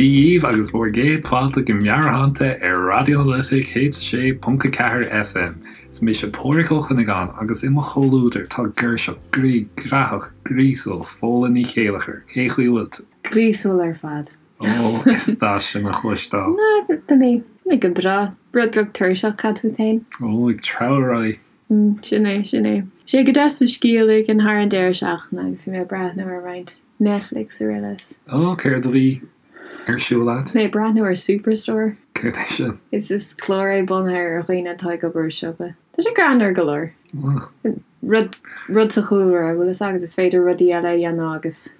Dia dhaoibh agus bhur gcéad fáilte go Meabhairshláinte ar Raidió na Life 106.4 FM. Is mise Pádhraic Ó Cuinneagáin agus i mo chomhluadar tá girseach groí graitheach gríosúil Fódhla Ní Chéilleachair. Cén chaoi a bhfuil tú? Gríosúil ar fad. Ó, is deas sin a chloisteáil. Ná, tá mé go breá. Rud beag tuirseach, cad fút féin? Ó, ag treabhadh ar aghaidh. Sin é, sin é. Sé go deas mo scíth a ligean thar an deireadh seachtaine agus bhí mé ag breathnú ar roinnt Netflix araile. Ó, céard a bhí ar siúl agat? Mé ag breathnú ar Superstore. Céard é sin? Is is clár é bunaithe ar dhaoine atá ag obair i siopa. Tá sé greannmhar go leor. Rud, rud sa chúlra, bhfuil fhios agat, is féidir rudaí eile a dhéanamh agus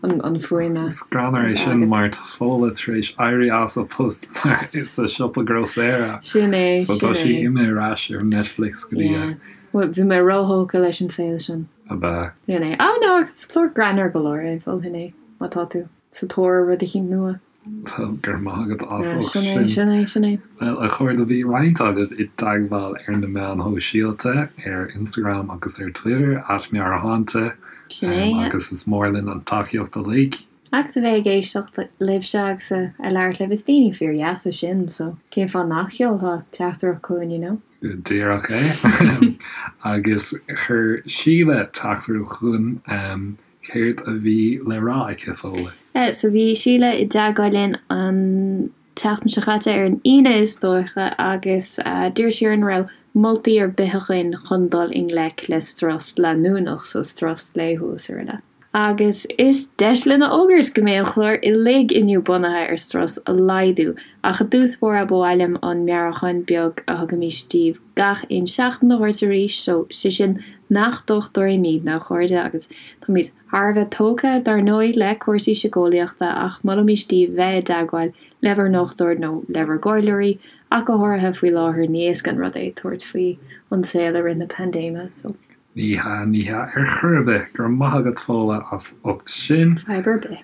an fuaim a. Is greannmhar é sin mar tá Fódhla tar éis éirí as a post mar sa siopa grósaera. Sin é, sin é. So tá sí imithe ar ais ar Netflix go dtí. Yeah. Bhuel, bhí mé róthógtha leis an saol sin. Ab ea? Sin é. Oh no, is clár greannmhar go leor é, mholfainn é, má tá tú sa tóir ar rud eicínt nua. Bhuel, go raibh maith agat as ucht sin. Sin é, sin é, sin é. Bhuel, a chairde, bhí roinnt agaibh i dteagmháil ar na meáin shóisialta, ar Instagram agus ar Twitter, @meabhairshláinte. Sin é, yeah. Agus is mór linn an tacaíocht uilig. Agus a bheith ag éisteacht libhse agus a labhairt libh, is daoine fíordheasa sinn, so cén fáth nach seolfá teachtaireacht chugainn, you know? Go díreach é. Agus chuir Síle teachtaireacht chugainn. Céard a bhí le rá aici, Fódhla? So bhí Síle i dteagmháil linn an tseachtain seo caite, ar an Aoine is dóiche, agus d'iarr sí orainn an raibh moltaí ar bith againn chun dul i ngleic le strus leanúnach, so strus laethúil is araile. Agus is deis linn a fhógairt go mbeidh an clár uilig inniu bunaithe ar strus a laghdú, ach i dtús báire ba mhaith liom an meabhrúchán beag a thugaimís daoibh gach aon seachtain a thabhairt arís, so sé sin nach dochtúirí muidne, a chairde, agus táimid thar a bheith tógtha, dar ndóigh, le cúrsaí síceolaíochta, ach molaimís daoibh bheith i dteagmháil le bhur ndochtúir nó le bhur gcomhairleoirí, ach go háirithe faoi láthair, ní éasca an rud é tabhairt faoi an saol i rith na paindéime, so. Ní hea, ní hea ar chor ar bith. Go raibh maith agat Fódhla as ucht sin. Fadhb ar bith.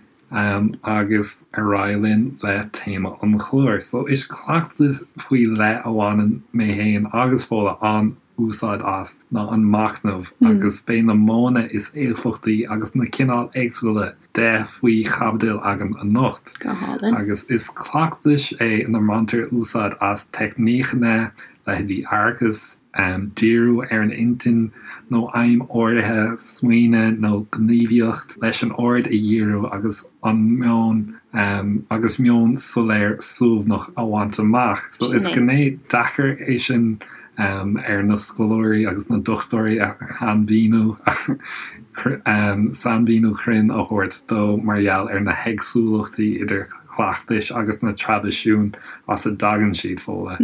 Agus ar aghaidh linn le téama an chláir. So is cleachtas faoi leith a bhaineann mé féin agus Fódhla an-úsáid as ná an machnamh agus beidh na modhanna is éifeachtaí agus na cineáil éagsúla de faoi chaibidil againn anocht. Go hálainn. Agus is cleachtas é ina mbaintear úsáid as teicníceanna leithéidí aireachas, díriú ar an intinn nó aidhm áirithe, smaoineamh nó gníomhaíocht leis an aird a dhíriú agus an meon agus meon soiléir suaimhneach a bhaint amach. So is gné deacair é sin ar na scoláirí agus na dochtúirí a shainmhíniú sainmhíniú cruinn a thabhairt dó mar gheall ar na héagsúlachtaí idir chleachtais agus na traidisiúin as a dtagann siad, Fódhla.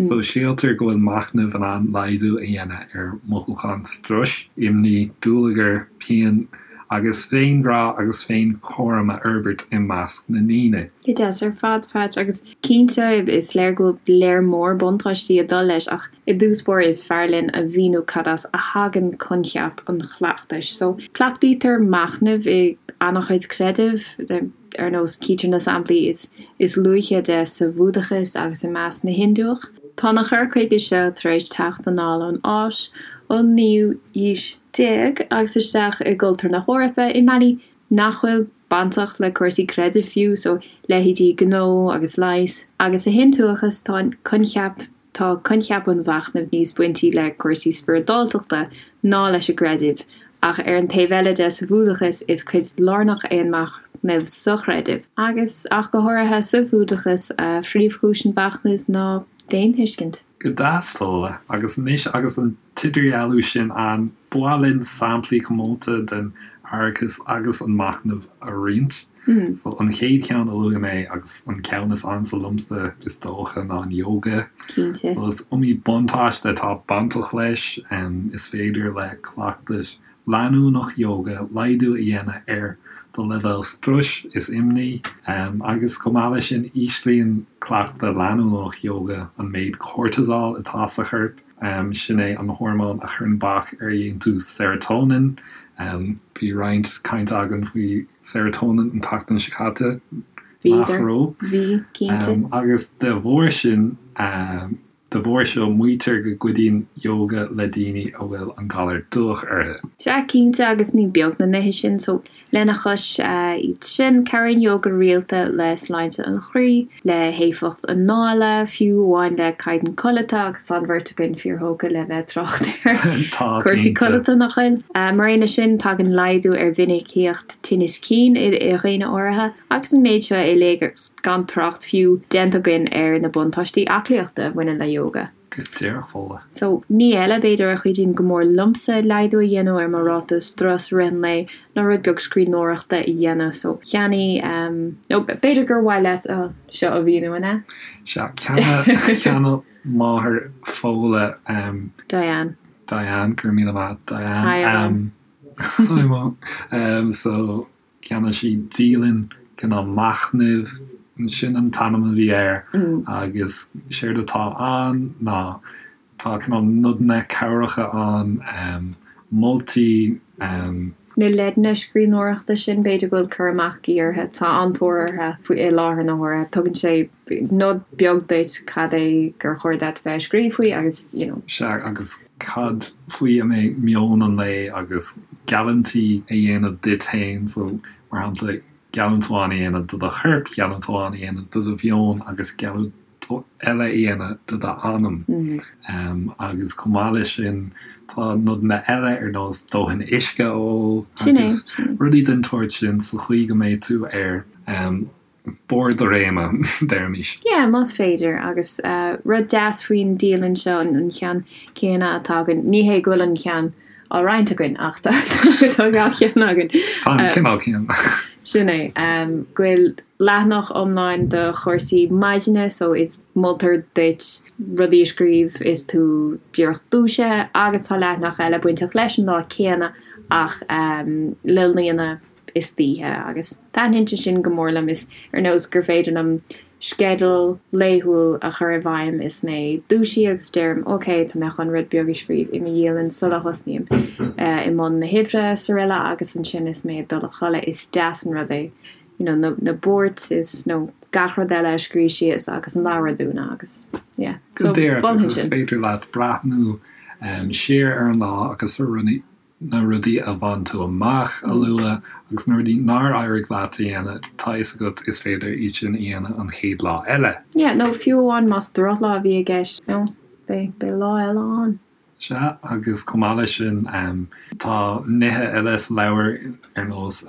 So síltear go bhfuil machnamh in ann laghdú a dhéanamh ar mhothúcháin struis, imní, dúlagar, pian agus féinghrá agus féinchúram a fhorbairt i measc na ndaoine. Go deas ar fad, Patch, agus cinnte is léir go bhfuil léar mór buntáistí ag dul leis ach i dtús báire is fearr linn a mhíniú cad as a thagann coincheap an chleachtais. So cleachtaítear machnamh i an-chuid creideamh. Ar nós, cítear na samplaí is is luaithe de sa Bhúdachas agus i measc na Hiondúch. Tá an cur chuige seo tar éis teacht anall ón Áis ón naoú haois déag agus isteach i gcultúr na hEorpa i mbealaí nach bhfuil bainteach le cúrsaí creidimh fiú, so leithéidí gnó agus leighis. Agus sa Hiondúchas tá an coincheap Tá coincheap an mhachnaimh níos baintí le cúrsaí spioradáltachta ná leis an gcreideamh, ach ar an taobh eile de, sa Bhúdachas, is cuid lárnach é an machnamh sa chreideamh, agus ach go háirithe sa Bhúdachas, phríomhchúis an mhachnaimh ná féinthuiscint. Go deas, Fódhla. Agus anois agus an t-idirdhealú sin ann, ba mhaith linn samplaí comónta den aireachas agus an machnamh a roinnt. So an chéad cheann a luaigh mé agus an ceann is ansa liomsa is dócha ná an yoga. Cinnte. So is iomaí buntáiste atá bainteach leis. Is féidir le cleachtas leanúnach yoga laghdú a dhéanamh ar do leibhéal struis is imní agus chomh maith leis sin íslíonn cleachtadh leanúnach yoga an méid cortisol atá sa chorp. Sin é an hormón a chuireann bac ar dhéantús serotonin. Bhí roinnt cainte againn faoi serotonin an tseachtain seo caite, nach raibh? Bhí, cinnte. Agus de bharr sin. De bharr seo, maítear go gcuidíonn ióga le daoine a bhfuil an galar dubhach orthu. Sea, cinnte, agus ní beag na nithe sin. So, lena chois iad sin, cabhraíonn ióga rialta le sláinte an chroí, le héifeacht anála, fiú amháin le caighdeán codlata, agus tá an bheirt againn fíorthógtha le bheith ag trácht ar chúrsaí codlata, nach bhfuil? Mar aon leis sin, tagann laghdú ar mhinicíocht tinnis cinn i dhaoine áirithe. Agus an méid seo uilig agus gan trácht fiú déanta againn ar na buntáistí aclaíochta a bhaineann le ióga. Go díreach, Fódhla. So, ní eile, b'fhéidir, a chuidíonn go mór liomsa laghdú a dhéanamh ar mo ráta strus i rith an lae ná rud beag scríbhneoireachta a dhéanamh. So, cheannaigh, nó b'fhéidir gur mhaith leat seo a mhíniú, an ea? Sea, cheannaigh máthair Fódhla. Diane. Diane, go raibh míle maith, Diane. Hi, a Mham. Hi, Mom. So, Cheannaigh sí dialann cineál machnaimh, sin an t-ainm a bhí air, agus séard atá ann ná tá cineál nodanna cabhracha ann, moltaí. Na leideanna scríbhneoireachta sin, b'fhéidir go bhfuil cur amach agaibh orthu, tá an-tóir orthu i láthair na huaire. Tugann sé nod beag duit cad é gur chóir duit bheith ag scríobh faoi agus, you know. Sea, agus cad faoi a mbeidh meon an lae agus geallúintí a dhéanamh duit féin, so, mar shampla, geallúint amháin a dhéanamh do do chorp, geallúint amháin a dhéanamh do do mheon agus geallúint eile a dhéanamh do d'anam. Agus chomh maith leis sin, tá nodanna eile ar nós dóthain uisce a ól agus rudaí den tsórt sin sa chaoi go mbeidh tú ar barr do réime, deirimis. Yeah, más féidir. Agus rud deas faoin dialann seo, an ceann céanna atá againn, ní hé go bhfuil an ceann á roinnt againn ach tá dhá cheann againn. Tá an cineál céanna. Sin é. Go bhfuil leathanach iomlán do chúrsaí maidine so is moltar duit rudaí a scríobh is tú díreach dúisithe agus tá leathanach eile bainteach leis an lá céanna ach le líonadh istoíche agus taitníonn sé sin go mór liom. Is ar nós gur féidir liom sceideal laethúil a chur i bhfeidhm is mé dúisithe agus deirim ok tá mé chun rud beag a scríobh i mo dhialann sula thosnaím i mbun na hoibre is araile agus ansin is mé ag dul a chodladh is deas an rud é you know na na buairt is nó gach rud eile a scríobh síos agus an leabhar a dúnadh agus yeah so Go díreach agus is féidir leat breathnú siar ar an lá agus ar rudaí na rudaí a bhain tú amach a lua agus na rudaí nár éirigh leat a dhéanamh, tá a fhios agat is féidir iad sin a dhéanamh an chéad lá eile. Yeah, nó fiú amháin más drochlá a bhí i gceist, you know, beidh, beidh lá eile ann. Sea, agus chomh maith leis sin, tá nithe eile sa leabhar ar nós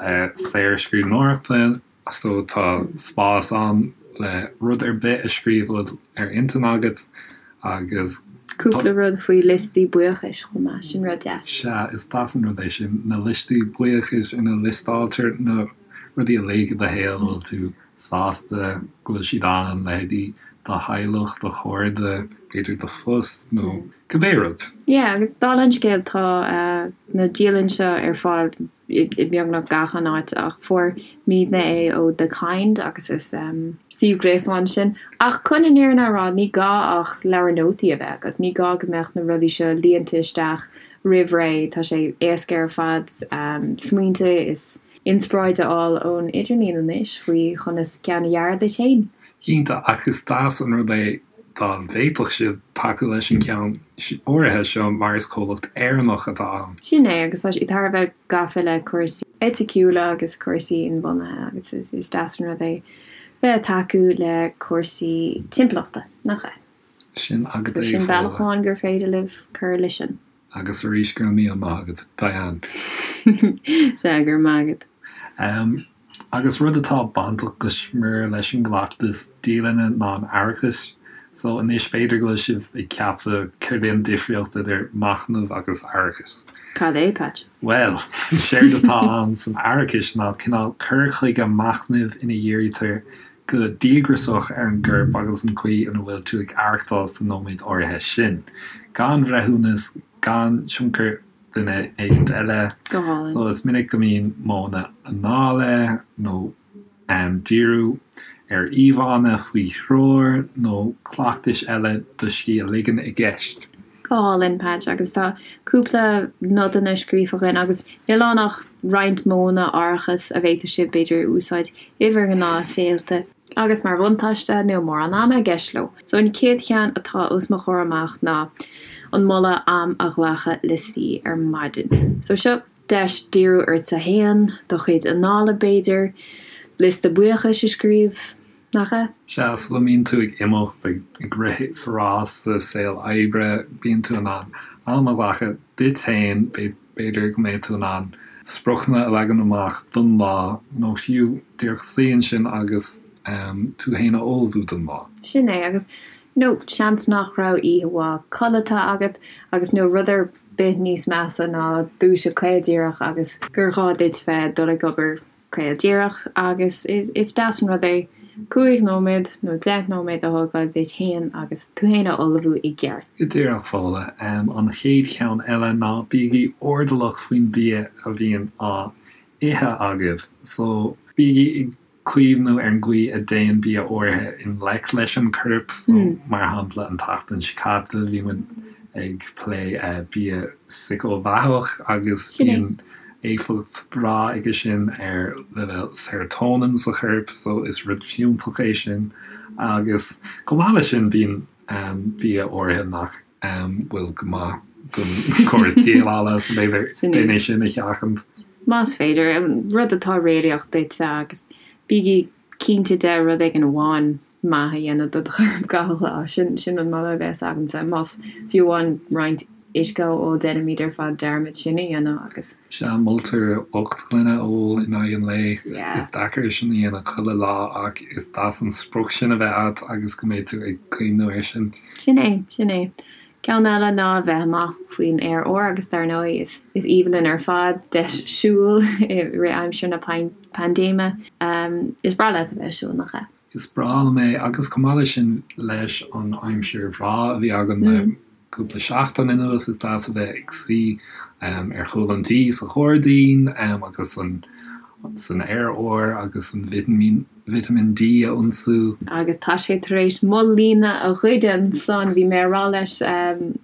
saorscríbhneoireachta, So tá spás ann le rud ar bith a scríobh a bhfuil ar intinn agat agus. Cúpla rud faoi liostaí buíochais chomh maith, sin rud deas. Sea, is deas an rud é sin, na liostaí buíochais ina liostáiltear na rudaí uilig i do shaol a bhfuil tú sásta go bhfuil siad ann, leithéidí do theaghlach, do chairde, b'fhéidir do phost nó cibé rud. Yeah, agus dála an scéil tá na dialann seo ar fáil i mbeagnach gach aon áit ach fuair muidne é ó The Kind agus is suíomh gréasáin sin. Ach chun an fhírinne a rá, ní gá ach leabhar nótaí a bheith agat, ní gá go mbeadh na rudaí seo líonta isteach roimh ré, tá sé éasca ar fad smaointe is inspioráid a fháil ón idirlíon anois faoi chonas ceann a dhearadh duit féin. Cinnte, ach is deas an rud é dá bhféadfadh sibh tacú leis an gceann áirithe seo mar is comhlacht Éireannach atá ann. Sin é, agus tá siad thar a bheith gafa le cúrsaí eiticiúla agus cúrsaí inbhuanaithe agus is deas an rud é bheith ag tacú le cúrsaí timpeallachta, nach ea? Sin agat é, Sin bealach amháin gur féidir libh cur leis sin. Agus arís, go raibh míle maith agat, Diane. Sea, go raibh maith agat. Agus rud atá bainteach go smior leis an gcleachtas dialainne ná an aireachas. So anois b'fhéidir go bhfuil sibh ag ceapadh céard é an difríocht idir machnamh agus aireachas? Cad é, Patch? Bhuel, séard atá ann san aireachas ná cineál cur chuige machnaimh ina dhírítear go díograiseach ar an gcorp agus an chaoi ina bhfuil tú ag aireachtáil sa nóiméad áirithe sin. Gan bhreithiúnas, gan tionchar duine éicint eile. Go hálainn. So is minic go mbíonn modhanna anála nó díriú ar íomhánna faoi threoir nó cleachtais eile do scíth a ligean i gceist. Go hálainn, Patch, agus tá cúpla nodanna scríofa againn agus níl ann ach roinnt modhanna aireachais a bhféadfadh sibh, b'fhéidir, a úsáid i bhur ngnáthshaolta. Agus mar bhuntáiste, níl mórán ama i gceist leo. So an chéad cheann atá os mo chomhair amach ná an moladh am a ghlacadh le suí ar maidin. So seo deis díriú ortsa fhéin, do chuid anála b'fhéidir, liosta buíochais a scríobh, nach ea? Sea, sula mbíonn tú ag imeacht, ag rith sa rás sa saol oibre, bíonn tú in ann am a ghlacadh duit féin, b'fhéidir go mbeidh tú in ann spriocanna a leagan amach don lá nó fiú díreach suí ansin agus tú féin a ullmhú don lá. Sin é, agus you know, seans nach raibh oíche mhaith codlata agat agus níl rud ar bith níos measa ná dúiseacht caol díreach agus gur ghá duit bheith ag dul ag obair caol díreach agus is deas an rud é 5 nóiméad nó 10 nóiméad a thógáil duit féin agus tú féin a ullmhú i gceart. Go díreach, Fódhla. An chéad cheann eile ná bígí airdeallach faoin bia a bhíonn á ithe agaibh. So, bígí ag cuimhniú ar an gcaoi a dtéann bia áirithe i ngleic leis an corp. So, mar shampla, an tseachtain seo caite bhí muid ag plé bia síceamhaitheach agus bíonn éifeacht bhreá aige sin ar leibhéal serotonin sa chorp so is rud fiúntach é sin agus chomh maith leis sin bíonn bia áirithe nach bhfuil go maith don chóras déileála so b'fhéidir déan é sin a sheachaint. Más féidir, rud atá réalaíoch duitse agus bígí cinnte de rud éigin amháin maith a dhéanamh do do chorp gach lá. Sin sin an moladh a bheas agamsa. Más fiú amháin roinnt uisce a ól, déanaimid ar fad dearmad sin a dhéanamh agus. Sea, moltar 8 ngloine a ól in aghaidh an lae. Is deacair sin a dhéanamh chuile lá ach is deas an sprioc sin a bheith agat agus go mbeidh tú ag cuimhniú air sin. Sin é, sin é. Ceann eile ná a bheith amach faoin aer úr agus dar ndóigh is is aoibhinn linn ar fad deis siúil i rith aimsir na paindéime. Is breá leat a bheith ag siúl, nach ea? Is breá liom é agus chomh maith leis sin leis an aimsir bhreá a bhí againn le cúpla seachtain anuas is deas a bheith ag suí ar chúl an tí sa ghairdín agus an san aer úr agus an vitimín D a ionsú. Agus tá sé tar éis mo líne a ghoid ansan, bhí mé a rá leis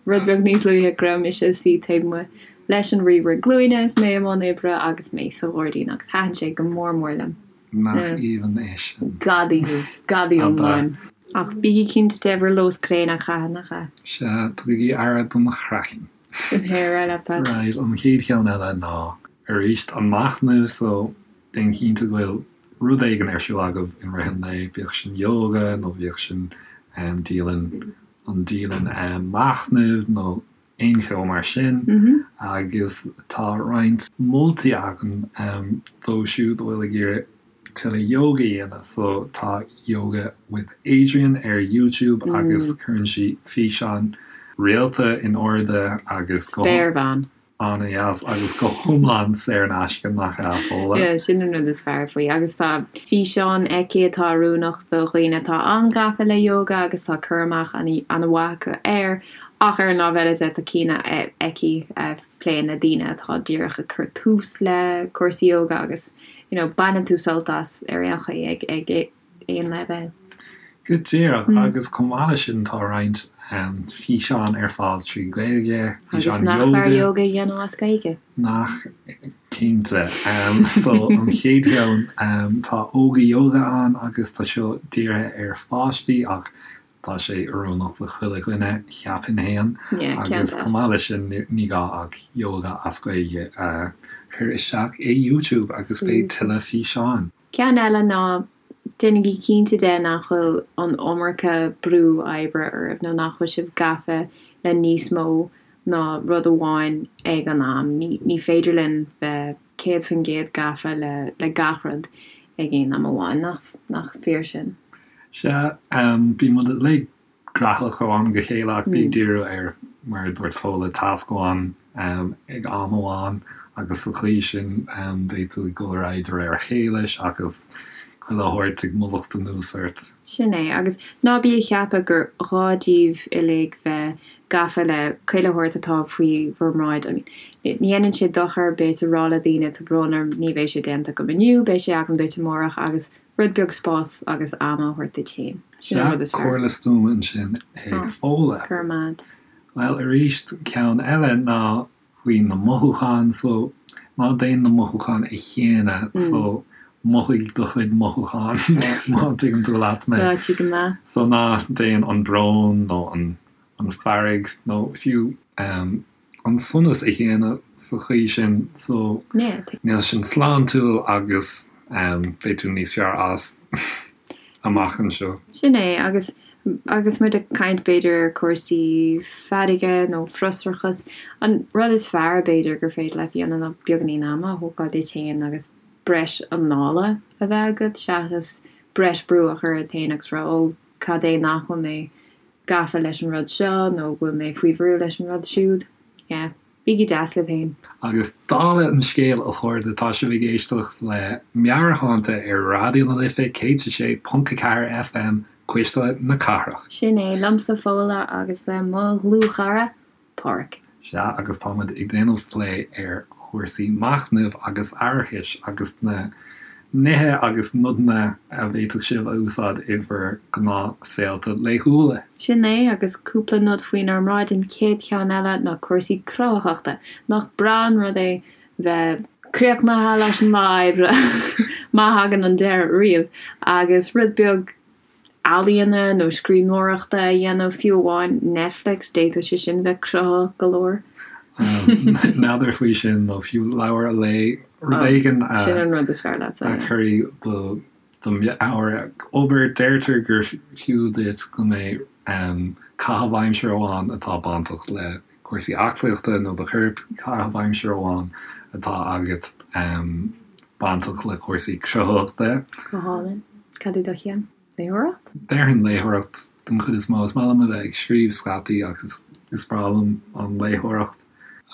rud beag níos luaithe go raibh mise ag suí taobh amuigh leis an ríomhaire glúine is mé i mbun oibre agus mé sa ghairdín agus thaitin sé go mór mór liom. Nach aoibhinn é sin. Gadaí thú. Gadaí iomlán. Ach bígí cinnte de bhur luas gréine a chaitheamh, nach ea? Sea, tugaigí aire don chraiceann. Sin é ar aghaidh leat, Pat. Right, an chéad cheann eile ná arís an machnamh, so déan cinnte go bhfuil rud éigin ar siúl agaibh in rith an lae, bíodh sin yoga nó bíodh sin dialann, an dialann machnaimh nó aon cheo mar sin agus tá roinnt moltaí againn dóibh siúd a bhfuil ag iarraidh tuilleadh yoga a dhéanamh. So tá Yoga with Adriene ar YouTube agus cuireann sí físeáin rialta in airde agus go. Spéirbhean. An-dheas agus go hiomlán saor in aisce, nach ea, Fódhla? Yeah, sin an rud is fearr faoi. Agus tá físeáin aici atá oiriúnach do dhaoine atá an-ghafa le yoga agus tá cur amach an-mhaith acu air. Ach ar an lámh eile de, tá cinn aici a phléann le daoine atá díreach ag cur tús le cúrsaí yoga agus you know baineann tú sult as ar aon chaoi ag ag aon leibhéal. Go díreach, agus chomh maith leis sin tá roinnt físeán ar fáil trí Ghaeilge, Agus físeáin nach fearr yoga. yoga a dhéanamh as Gaeilge? Nach cinnte. So an chéad cheann, tá Óga Yoga ann agus tá seo dírithe ar pháistí ach Tá sé oiriúnach do chuile dhuine, cheapfainn fhéin. Agus chomh maith leis sin, ní gá ach Yoga as Gaeilge a chur isteach i YouTube agus beidh tuilleadh físeáin. Ceann eile ná déanaigí cinnte de nach bhfuil an iomarca brú oibre oraibh nó nach bhfuil sibh gafa le níos mó ná rud amháin ag an am. Ní féidir linn bheith 100% gafa le gach rud ag aon am amháin, nach fíor sin? Sea, bíonn muid uilig graitheach ó am go chéile ach bí ag díriú ar, mar a dúirt Fódhla, tasc amháin ag am amháin agus sa chaoi sin beidh tú ag dul ar aghaidh de réir a chéile seachas chuile shórt ag mullacht anuas ort. Sin é, agus ná bí ag ceapadh gur ghá daoibh uilig bheith gafa le chuile shórt atá faoi bhur mbráid. I mean, ní dhéanann sé dochar ar bith a rá le daoine tá brón orm, ní bheidh sé déanta agam inniu, beidh sé agam duit amárach agus Rud beag spáis agus ama a thabhairt duit féin. Sin an rud is fearr. Comhairle stuama ansin ag Fódhla. Go raibh maith agat. Bhuel, arís, ceann eile ná faoi na mothúcháin. So, ná déan na mothúcháin a shéanadh. So, Mothaigh do chuid mothúchán má tuigeann tú leat mé. Tá, tuigim leat. So ná déan an brón nó an fearg nó fiú an sonas a shéanadh sa chaoi sin so níl sin sláintiúil agus beidh tú níos fearr as amach anseo. Sin é agus agus muid ag caint b'fhéidir ar cúrsaí fearga nó frustrachas, an rud is fearr b'fhéidir gur féidir leat a dhéanamh ná beagáinín ama a thógáil duit féin agus breis anála a bheith agat seachas breis brú a chur ort féin agus rá ó cad é nach bhfuil mé gafa leis an rud seo nó go bhfuil mé faoi bhrú leis an rud siúd. Yeah. Bígí deas libh féin. Agus dála an scéil, a chairde, tá sibh ag éisteacht le Meabhairshláinte ar Raidió na Life 106.4 FM, Cuisle na Cathrach. Sin é, liomsa Fódhla agus le mo dhlúthchara, Páraic. Sea, agus tá muid ag déanamh plé ar chúrsaí machnaimh agus aireachais agus na nithe agus nodanna a bhféadfadh sibh a úsáid i bhur ngnáthshaolta laethúla. Sin é, agus cúpla nod faoinár mbráid, an chéad cheann eile ná cúrsaí cruthaitheachta. Nach breá an rud é bheith críochnaithe leis an lá oibre, má thagann an deireadh riamh, agus rud beag ealaíona nó scríbhneoireachta a dhéanamh, fiú amháin Netflix, d'fhéadfadh sé sin bheith cruthaitheach go leor. N'fheadar faoi sin, nó fiú leabhar a léamh, rud éigin a. Sin an rud is fearr leatsa, yeah. A chuirfidh do do mheabhair ag obair. Deirtear gur fiú duit go mbeidh caitheamh aimsire amháin atá bainteach le cúrsaí aclaíochta nó do chorp, caitheamh aimsire amháin atá agat bainteach le cúrsaí cruthaitheachta. Go hálainn. Cad é do cheann? Léitheoireacht? Déarfainn léitheoireacht den chuid is mó. Is maith liom a bheith ag scríobh scaití ach is breá liom an léitheoireacht.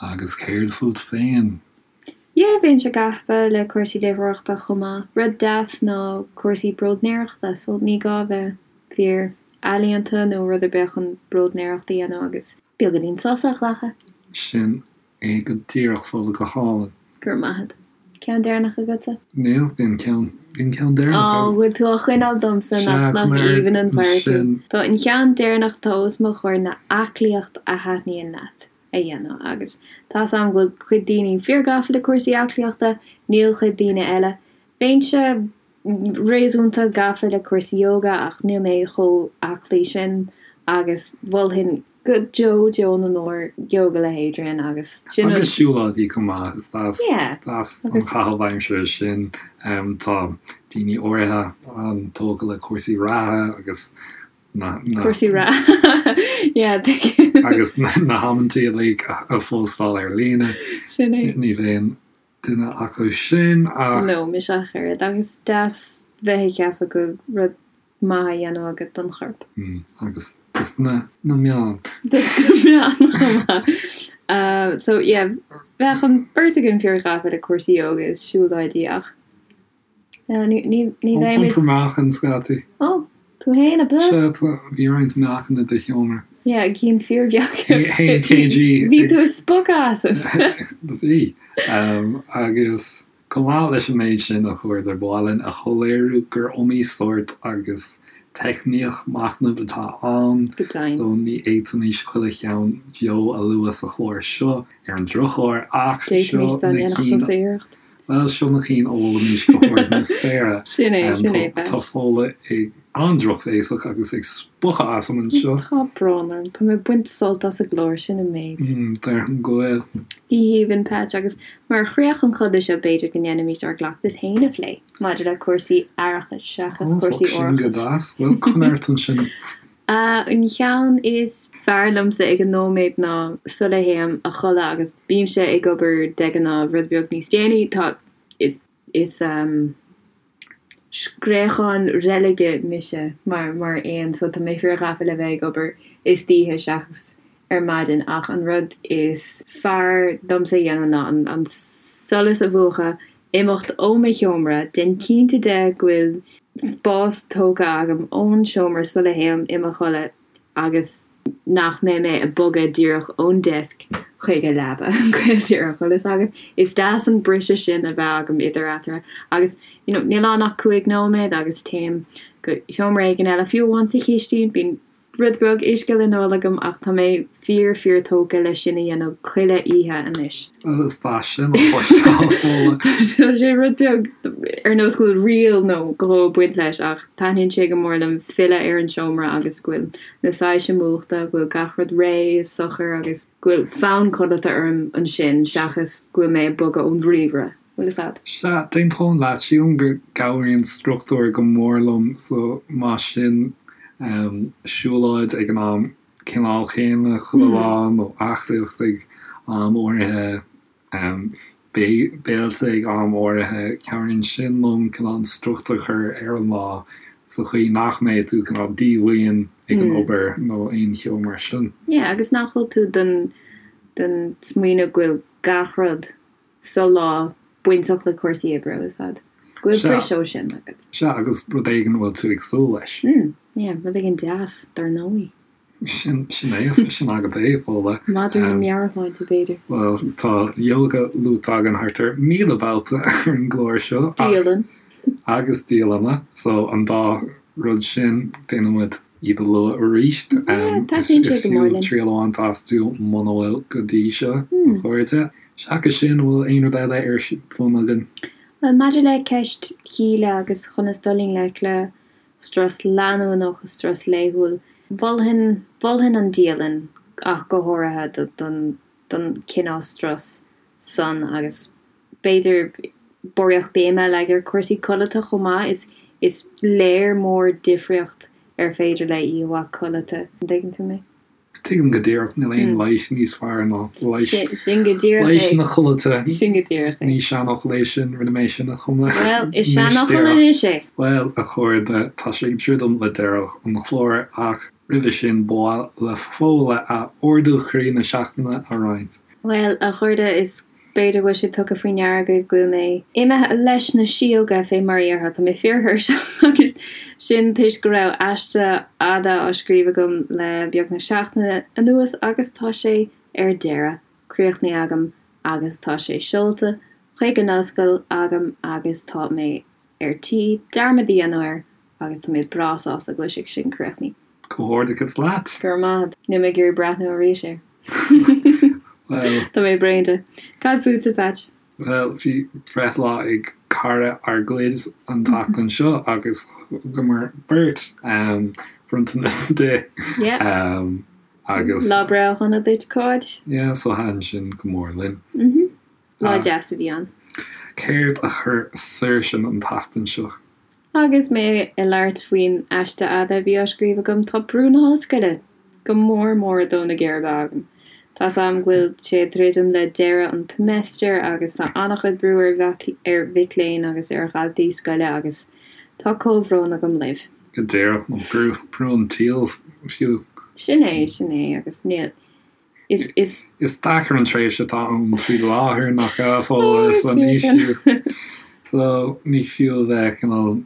Agus céard fút féin? Yeah, bheinnse gafa le cúrsaí léitheoireachta chomh maith. Rud deas ná cúrsaí bróidnéireachta, so ní gá a bheith fíor ealaíonta nó rud ar bith chun bróidnéireacht a dhéanamh agus beagáinín sosa a ghlacadh. Sin é go díreach, Fódhla, go hálainn. Go raibh maith agat. Ceann deireanach agatsa? Níl, bhí an ceann, bhí an ceann deireanach Á, agam. bhfuil tú á choinneáil domsa, Sea, nach, nach chun aird aoibhinn an fear tú. ansin. Tá an ceann deireanach atá os mo chomhair ná aclaíocht a thaitníonn leat a dhéanamh agus tá's a'm go bhfuil cuid daoine fíor-gafa le cúrsaí aclaíochta, níl cuid daoine eile. Bheinnse réasúnta gafa le cúrsaí yoga ach níl mé chomh aclaí sin agus mholfainn go deo deo na ndeor Yoga le hAdrian agus sin an. Agus siúlóidí chomh maith, is deas, is deas an caitheamh aimsire sin. Tá daoine áirithe an-tógtha le cúrsaí reatha agus na. Cúrsaí reatha, yeah, tuigim. Agus na hamantaí uilig a phóstáil ar líne. Sin é. Ní bheinn duine acu sin ach. No, mise ach oiread. Agus is deas bheith ag ceapadh go bhfuil rud maith á dhéanamh agat don chorp. Agus dos na meáin. Dos na meáin chomh maith. So yeah, bheadh an beirt againn fíor-ghafa le cúrsaí ióga is siúlóidí ach Ní bheimid. Iompar meáchain scaití. Ó, tú fhéin, ab ea? Sea, bhí roinnt meáchain i do sheomra. Yeah, cinn fíorbheag. 1 kg. Bhí tú ag spochadh asam. Bhí. Agus chomh maith leis an méid sin, a chairde, ba mhaith linn a shoiléiriú gur iomaí sórt agus teicníocht machnaimh atá ann, so ní fhéadfaimis chuile cheann beo a lua sa chlár seo ar an drochuair, ach seo na cinn. Bhuel, seo na cinn a mholfaimis go hard na spéire. Sin é, sin é, Tá Fódhla ag an-drochbhéasach agus ag spochadh asam anseo. Tá brón orm. Tá mé ag baint sult as an gclár, sin an méid. Déarfainn go bhfuil. Go haoibhinn, Patch, agus mar chríoch an choda seo b'fhéidir go ndéanfaimis ár gcleachtas féin a phlé maidir le cúrsaí aireachais seachas cúrsaí Ó, sin go árachais. deas. Bhuel, coinnigh ort ansin. An cheann is fearr liomsa ag an nóiméad ná sula théim a chodladh agus bímse ag obair de ghnáth rud beag níos déanaí, tá, is, is scréachán reilige mise mar, mar éan so tá mé fíor-ghafa le bheith ag obair istoíche seachas ar maidin ach an rud is fearr liomsa a dhéanamh ná an, an solas a mhúchadh, imeacht ó mo sheomra, déan cinnte de go bhfuil spás tógtha agam ón seomra sula théim i mo chodladh agus nach mbeidh mé ag bogadh díreach ón desk chuig an leaba go díreach, bhfuil fhios agat. Is deas an briseadh sin a bheith agam idir eatarthu agus you know níl ann ach 5 nóiméad agus téim go sheomra éigin eile, fiú amháin sa chistin, bíonn. rud beag uisce le n-ól agam ach tá mé fíor fíor tógtha leis sin a dhéanamh chuile oíche anois. Is deas sin a chloisteáil, Fódhla. Tá sé rud beag ar nós go bhfuil riail nó dhó ag baint leis ach taitníonn sé go mór liom filleadh ar an seomra agus go bhfuil na soilse múchta, go bhfuil gach rud réidh is socair agus go bhfuil fonn codlata orm ansin seachas go bhfuil mé ag bogadh ón ríomhaire. Bhfuil fhios a'd? Sea, d'aontóinn leat. Sílim go gcabhraíonn struchtúr go mór liom so más sin siúlóid ag an am cineál chéanna chuile lá nó aclaíocht ag am áirithe, béilte ag am áirithe, cabhraíonn sin liom cineál an struchtúr a chur ar an lá sa chaoi nach mbeidh tú cineál díomhaoin ag an obair nó aon cheo mar sin. Yeah, agus nach bhfuil tú den den smaoineamh go bhfuil gach rud sa lá bainteach le cúrsaí oibre, bhfuil fhios a'd. Go bhfuil briseadh ó sin agat. Sea, agus rud éigin a bhfuil tú ag súil leis. Mm, yeah, rud éigin deas, dar ndóigh. Sin, sin é, sin agat é, Fódhla. Madra na meabhairshláinte, b'fhéidir. Bhuel, tá yoga luaite againn thart ar 1,000 babhta ar an gclár seo. Dialann. Agus dialanna, so an dá rud sin, déanann muid iad a lua arís. Yeah, taitníonn sé go mór linn. Is fiú triail a bhaint astu muna bhfuil go dtí seo, a chairde. Seachas sin, an bhfuil aon rud eile ar bun againn? Bhuel, maidir le ceist Shíle agus conas dul i ngleic le strus leanúnach, strus laethúil, mholfainn, mholfainn an dialann ach go háirithe don, don cineál strus san agus b'fhéidir barraíocht béime a leagan ar chúrsaí codlata chomh maith. Is, is léir mór difríocht ar féidir le oíche mhaith codlata. An dtuigeann tú mé? Tuigim go díreach, níl aon leigheas níos fearr ná leigheas, Sin go díreach é. leigheas na codlata. Sin go díreach é. Ní seanfhocal é sin, rinne mé sin a chumadh. Bhuel, is seanfhocal anois é. Bhuel, a chairde, tá sé ag druidim le deireadh an chláir ach roimhe sin ba mhaith le Fódhla a ardú chroí na seachtaine a roinnt. Bhuel, a chairde, is B'fhéidir go bhfuil sé tugtha faoi ndeara agaibh go bhfuil mé imithe leis na síóga, fé mar a dhéarfá. Tá mé fíorthuirseach agus sin toisc go raibh aiste fhada á scríobh agam le beagnach seachtain anuas agus tá sé ar deireadh, críochnaithe agam agus tá sé seolta chuig an ollscoil agam agus tá mé ar tí dearmad a dhéanamh air agus tá mé breá sásta go bhfuil sé sin críochnaithe. Comhghairdeachas leat! Go raibh maith agat. Níl mé ag iarraidh breathnú arís air. Bhuel. Tá mé bréan de. Cad fútsa, Patch? Bhuel, bhí breithlá ag cara ár gcuid an tseachtain seo agus thugamar beirt bronntanas di. Yeah. Agus. Lá breithe shona duit, a chairde. Yeah, so thaitin sin go mór linn. Mhm. Lá deas a bhí ann. Céard a chuir saoirse an tseachtain seo? Agus mé ag labhairt faoin aiste fhada a bhí á scríobh agam, tá brú na hollscoile go mór mór ag dó na geirbe agam. Tá's a'm go bhfuil sé ag druidim le deireadh an tseimeastair agus tá an-chuid brú ar ar mhic léinn agus ar dhaltaí scoile agus tá comhbhrón agam libh. Go díreach, nó brú, brú an tsaoil fiú. Sin é, sin é agus níl, Is, is. Is deacair an tréimhse atá ann faoi láthair nach ea Fódhla so ní fiú so ní fiú a bheith cineál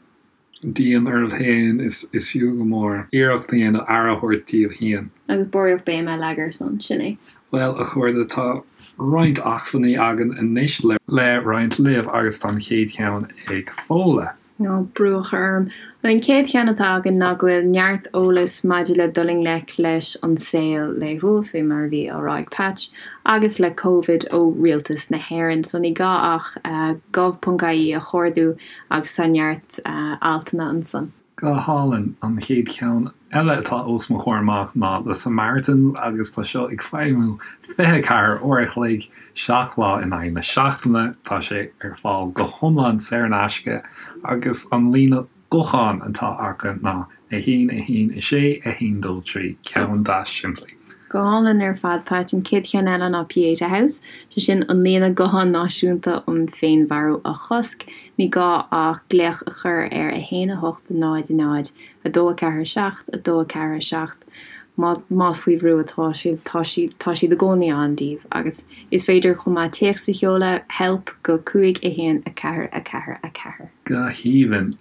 dian oraibh féin is is fiú go mór iarracht a dhéanamh aire a thabhairt daoibh féin. Agus barraíocht béime a leagan air san, sin é. Bhuel a chairde tá roinnt acmhainní againn anois le roinnt libh agus tá an chéad cheann ag Fódhla. Ná brú a chur orm. An chéad cheann atá againn ná go bhfuil neart eolais maidir le dul i ngleic leis an saol laethúil, fé mar a bhí á rá ag Patch, agus le Covid ó Rialtas na hÉireann. So ní gá ach gov.ie a chuardú agus tá neart altanna ansan. Go hálainn. An chéad cheann eile atá os mo chomhair amach ná The Samaritans agus tá seo ag feidhmiú 24 uair a chloig, 7 lá in aghaidh na seachtaine. Tá sé ar fáil go hiomlán saor in aisce agus an líne gutháin atá acu ná 1 1 6 1 2 3, ceann deas simplí. Go hálainn ar fad, Patch. An chéad cheann eile ná Pieta House, sé sin an líne gutháin náisiúnta um féinmharú a chosc. Ní gá ach glaoch a chur ar 1 8 0 0 2 4 7 2 4 7 má más faoi bhrú atá sibh, tá siad tá siad i gcónaí ann daoibh agus is féidir chomh maith téacs a sheoladh help go 5 1 4 4 4. Go haoibhinn.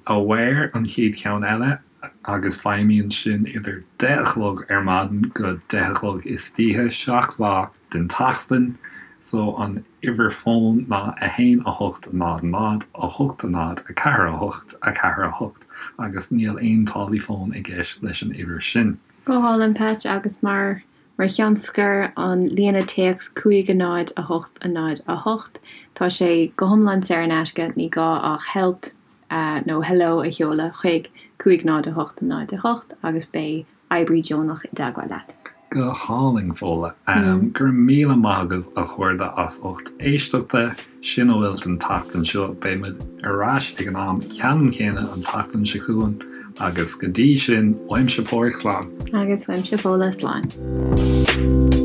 Aware an chéad cheann eile agus feidhmíonn sin idir deich a chlog ar maidin go deich a chlog istoíche, 7 lá den tseachtain. So an uimhir fóin ná 1 8 0 0 8 0 4 8 4 8 agus níl aon táillí fóin i gceist leis an uimhir sin. Go hálainn Patch agus mar Mar cheann scoir, an líne téacs 5 0 8 0 8, tá sé go hiomlán saor in aisce, ní gá ach help nó hello a sheoladh chuig 5 0 8 0 8 agus beidh oibrí deonach i dteagmháil leat. Go hálainn, Fódhla. Go raibh míle maith agaibh, a chairde, as ucht éisteachta. Sin a bhfuil don tseachtain seo. Beidh muid ar ais ag an am ceannann céanna an tseachtain seo chugainn agus go dtí sin, uaimse Páraic, slán. Agus uaimse Fódhla, slán.